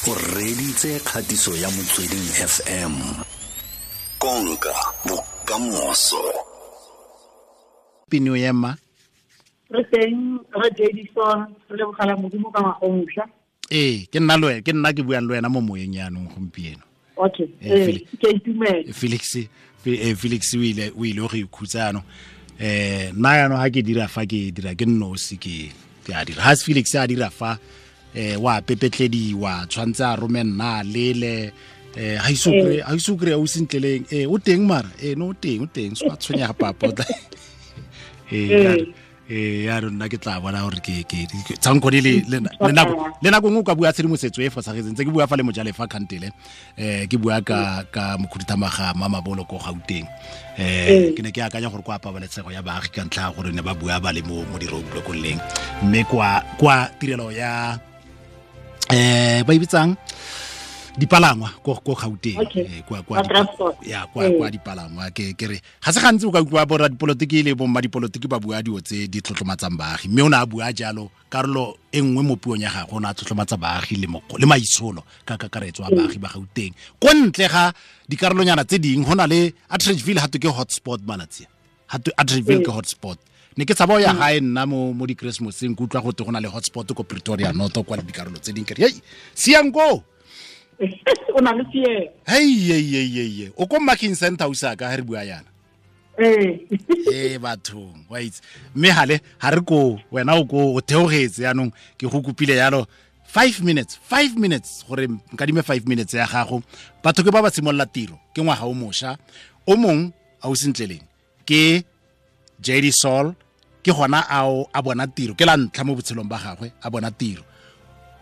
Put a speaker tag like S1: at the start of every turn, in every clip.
S1: O reditse kgatiso ya Motsweding FM. Konka bokamoso.
S2: Pino ema.
S3: Re teng re Jadison, re lebogela Modimo ka ngwaga o mošwa.
S2: Ee, ke nna le ke nna ke buang le wena mo moyeng yaanong gompieno.
S3: Okay. Ee, ke itumela.
S2: Felix Felix o ile go ikhutsa yaanong. Nna yaanong ha ke dira fa ke dira ke nnosi ke a dira. Ha Felix a dira fa wa pepetlediwa tshwantse a rome nna lele ha iso kry o sentleleng o teng mara no o teng so a tshwenyega papa o tla ya rona ke tla bona gore ke tsankgone le nako nngwe o ka bua tshedimosetso e fosagetseng tse ke bua fa le mojalefa kgantele ke bua ka mokhuduthamaga Mamabolo ko Gauteng ke ne ke akanya gore kwa pabalesego ya baagi ka ntlha gore ne ba bua ba le mo di-roadblockong leng mme kwa tirelo ya ba e bitsang dipalangwa ko Gauteng kwa dipalangwa ke re ga se gantsi o ka utlwa borra dipolotiki le bomma dipolotiki ba bua dilo tse di tlotlomatsang baagi mme o ne a bua jalo karolo e nngwe mo puong ya gagwe o ne a tlotlomatsa baagi le maitsholo ka kakaretso a baagi ba Gauteng ko ntle ga dikarolonyana tse dingwe go na le Atteridgeville ga twe ke hotspot malatsi ga twe Atteridgeville ke hotspot ne ke tshaba o ya gae nna mo di-Christmaseng ke utlwa gote go na le hotspot ko Pretoria North kwa le dikarolo tse dingwe ke re hei siang koo
S3: o na le fear
S2: hei o ko Marking Center o sa ka ha re bua yana bathong wa itse mme hale ha re ko wena o ko o theogetse yaanong ke go kopile yalo 5 minutes gore nkadime 5 minutes ya gago batho ke ba ba simolola tiro ke ngwaga o mosha o mong a o sentleleng ke JD Sol ke gona a bona tiro ke la ntlha mo botshelong ba gagwe a bona tiro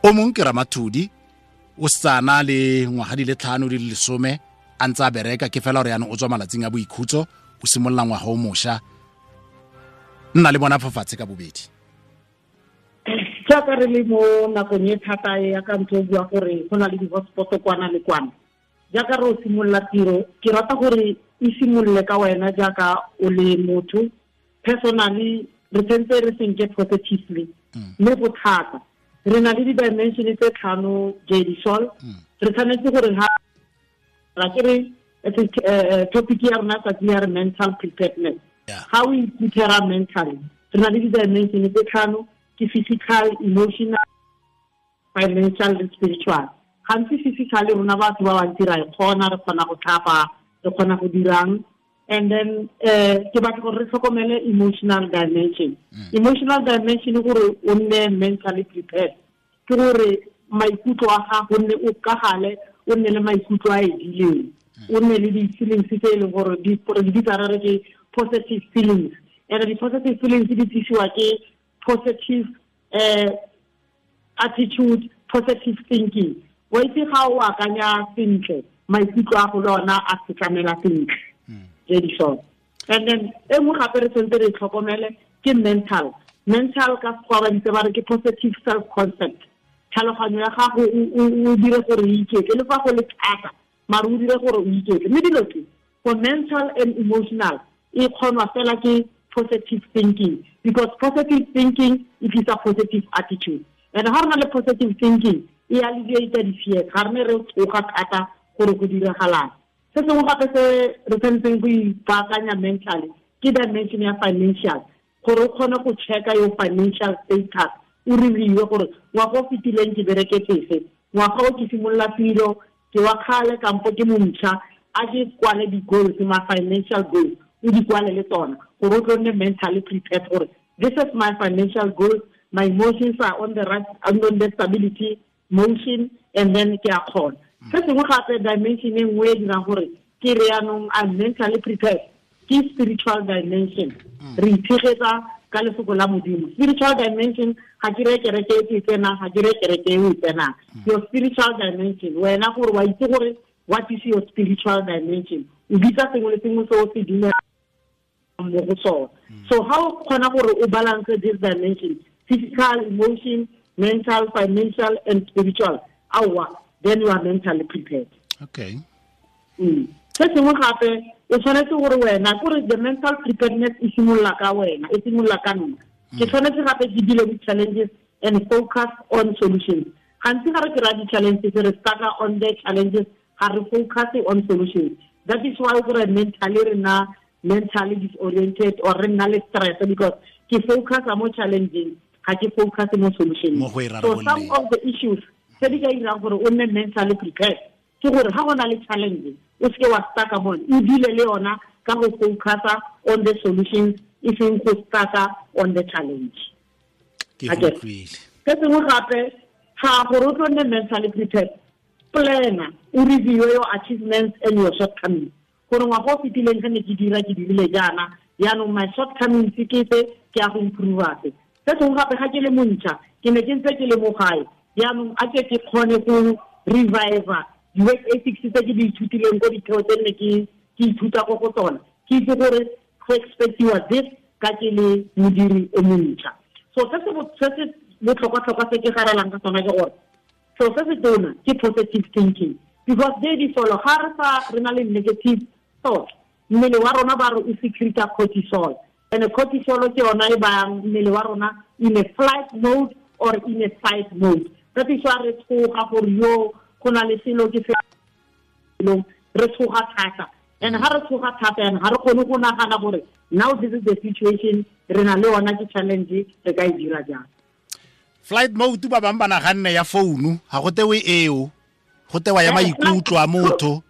S2: o mong ke Ramathodi o sana le ngwaga di le 5 di le 10 a ntse a bereka ke fela gore yaanong o tswa malatsing a boikhutso o simolola ngwaga o mosha nna le bona fafatshe ka bobedi
S3: jaaka re le mo nakong e thata ya ka ntse o bua gore go na le di-hotspot kwana le kwana jaaka re o simolola tiro ke rata gore e simolole ka wena jaaka o le motho personally re tshwanetse re senke positively mme go thata re na le di-dimension tse 5 JD Sol re tshwanetse gore ha ra ke re topic ya rona tsatsi ya re mental preparedness ga o iprepare mentally re na le di-dimension tse 5 ke physical, emotional, financial le spiritual. Gantsi physical rona batho ba bantsi ra e kgona re kgona go tlhapa re kgona go dirang and then ke batla gore re tlhokomele emotional dimension. Emotional dimension gore o nne mentally prepared ke gore maikutlo a gago nne o kagale o nne le maikutlo a edileng o nne le di-feelings tse e leng gore di bitsa re ke positive feelings and di-positive feelings di tlisiwa ke positive attitude, positive thinking. Wa itse ga o akanya sentle maikutlo a go le ona a setlamela sentle Jadison. And then e nngwe gape re tshwanetse re tlhokomele ke mental ka sekgowa ba ditse ba re ke positive self concept tlhaloganyo ya gago o dire gore o iketle le fa go le thata mare o dire gore o iketle mme dilo tse for mental and emotional e kgonwa fela ke positive thinking because positive thinking e tlisa positive attitude and ga re na le positive thinking e alleviate di-fears ga re ne re tsoga thata gore go diragalang. Se sengwe gape se re tshwanetseng go ipaakanya mentally ke dimension ya financial gore o kgone go checka your financial status o reviewe gore ngwaga o fetileng ke bereketse ngwaga o ke simolola tiro ke wa kgale kampo ke montšha a ke kwale di-goals ma financial goals o di kwale le tsona gore o tlo nne mentally prepared gore this is my financial goals, my emotions are on the right, on the stability motion and then ke a kgona. Se sengwe gape dimension e nngwe e dirang gore ke re yaanong I'm mentally prepared ke spiritual dimension. Re itshegetsa ka lefoko la Modimo. Spiritual dimension ga ke re kereke e ke tsenang ga ke re kereke e o e tsenang. Your spiritual dimension wena gore wa itse gore what is your spiritual dimension o bitsa sengwe le sengwe se o se dumelang mo go sona. So how o kgona gore o balance this dimension physical, emotion, mental, financial and spiritual awa then you are mentally prepared.
S2: Okay.
S3: Se sengwe gape o tshwanetse gore wena kore the mental preparedness e simolola ka wena e simolola ka nna ke tshwanetse gape ke deal with challenges and focus on solutions. Gantsi ga re kry-a di-challenges, re stuck on the challenges, ga re focus on solutions. That is why gore mentally re nna mentally disoriented or re nna le stress, because ke focus mo challenging, ga ke focus mo solution. So some of the issues tse di ka irang gore o nne mentally prepared ke gore ga go na le challenge, o seke wa stuck mo, o deal le yona ka go focus on the solutions, e seng go stuck on the challenge.
S2: Ke go utlwile.
S3: Se sengwe gape, ga gore o tlo nne mentally prepared, plan, o review your achievements and your shortcomings. Gore ngwaga o fetileng ge ne ke dira, ke dirile jaana, jaanong my shortcomings ke tse, ke ya go improve se. Se sengwe gape, ga ke le montšha, ke ne ke ntse ke le mo gae, jaanong a ke kgone go revive di-work ethics tse ke di ithutileng ko ditheo tse ne ke ithuta ko go tsona, ke itse gore go expectiwa this ka ke le modiri o montšha. So se se botlhokwa-tlhokwa se ke garelang ka sona ke gore so se se tona ke positive thinking, because they di solo ga re sa re na le negative thought, mmele wa rona ba re o secreta cortisol, and cortisol ke yona e bayang mmele wa rona in a flight mode or in a fight mode. That is why re tshoga gore yo go na le selo ke selo, re tshoga thata. And ha re tshoga thata, and ha re kgone go nagana gore now this is the situation re na le yona, ke challenge, re ka e dira jang.
S2: Flight mode ba bang ba naganne ya founu, ga go tewe eo, go tewa ya maikutlo a motho.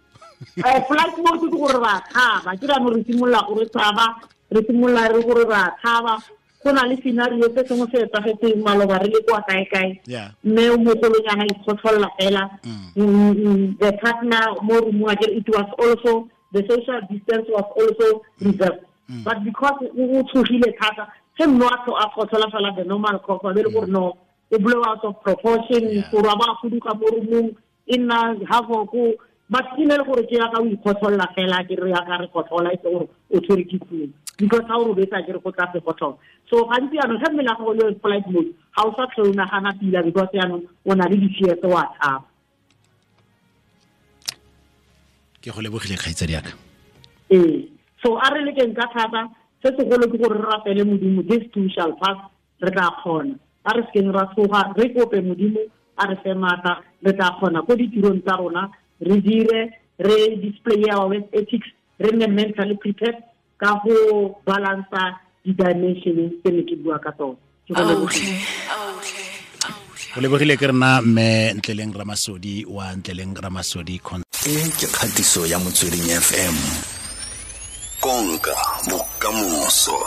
S3: Flight mode ke gore ra tshaba, ke ra re simolola gore tshaba, re simolola re gore ra tshaba. Go na le scenario se sengwe se etsagetseng maloba re le kwa kae-kae, mme o mogolonyana ikgotlholela fela. The partner mo roomong, akere it was also the social distance was also reserved, but because o tshogile thata, ge mme a kgotlhola fela the normal cough, a be le gore no, o blow out of proportion, gore a ba fuduga mo roomong, e nna half ko, but e ne le gore ke yaka o ikgotlholela fela, ke re yaka re kgotlhola, e se gore o tshwere ke flu, because ha o robetsa ke re go tla se kgotlhola. So gantsi jaanong ge mmele wa gago le flight mode, ga o sa tlhole o nagana pila, because jaanong o na le di-fears, wa tshaba.
S2: Ke go lebogile kgaitsadi yaka.
S3: Ee, so a re lekeng ka thata, se segolo ke gore re rapele Modimo, this too shall pass, re tla kgona. A re sekeng ra tshoga, re kope Modimo a re fe maatla, re tla kgona ko ditirong tsa rona, re dire, re display our work ethics, re nne mentally prepared ka go balansa di-dimension tse ne ke bua ka tsone. Ke go lebogile.
S2: O lebogile ke rena mme Ntleleng Ramasodi wa Ntleleng Ramasodi.
S1: E ke kgatiso ya Motsweding FM. Konka bokamoso.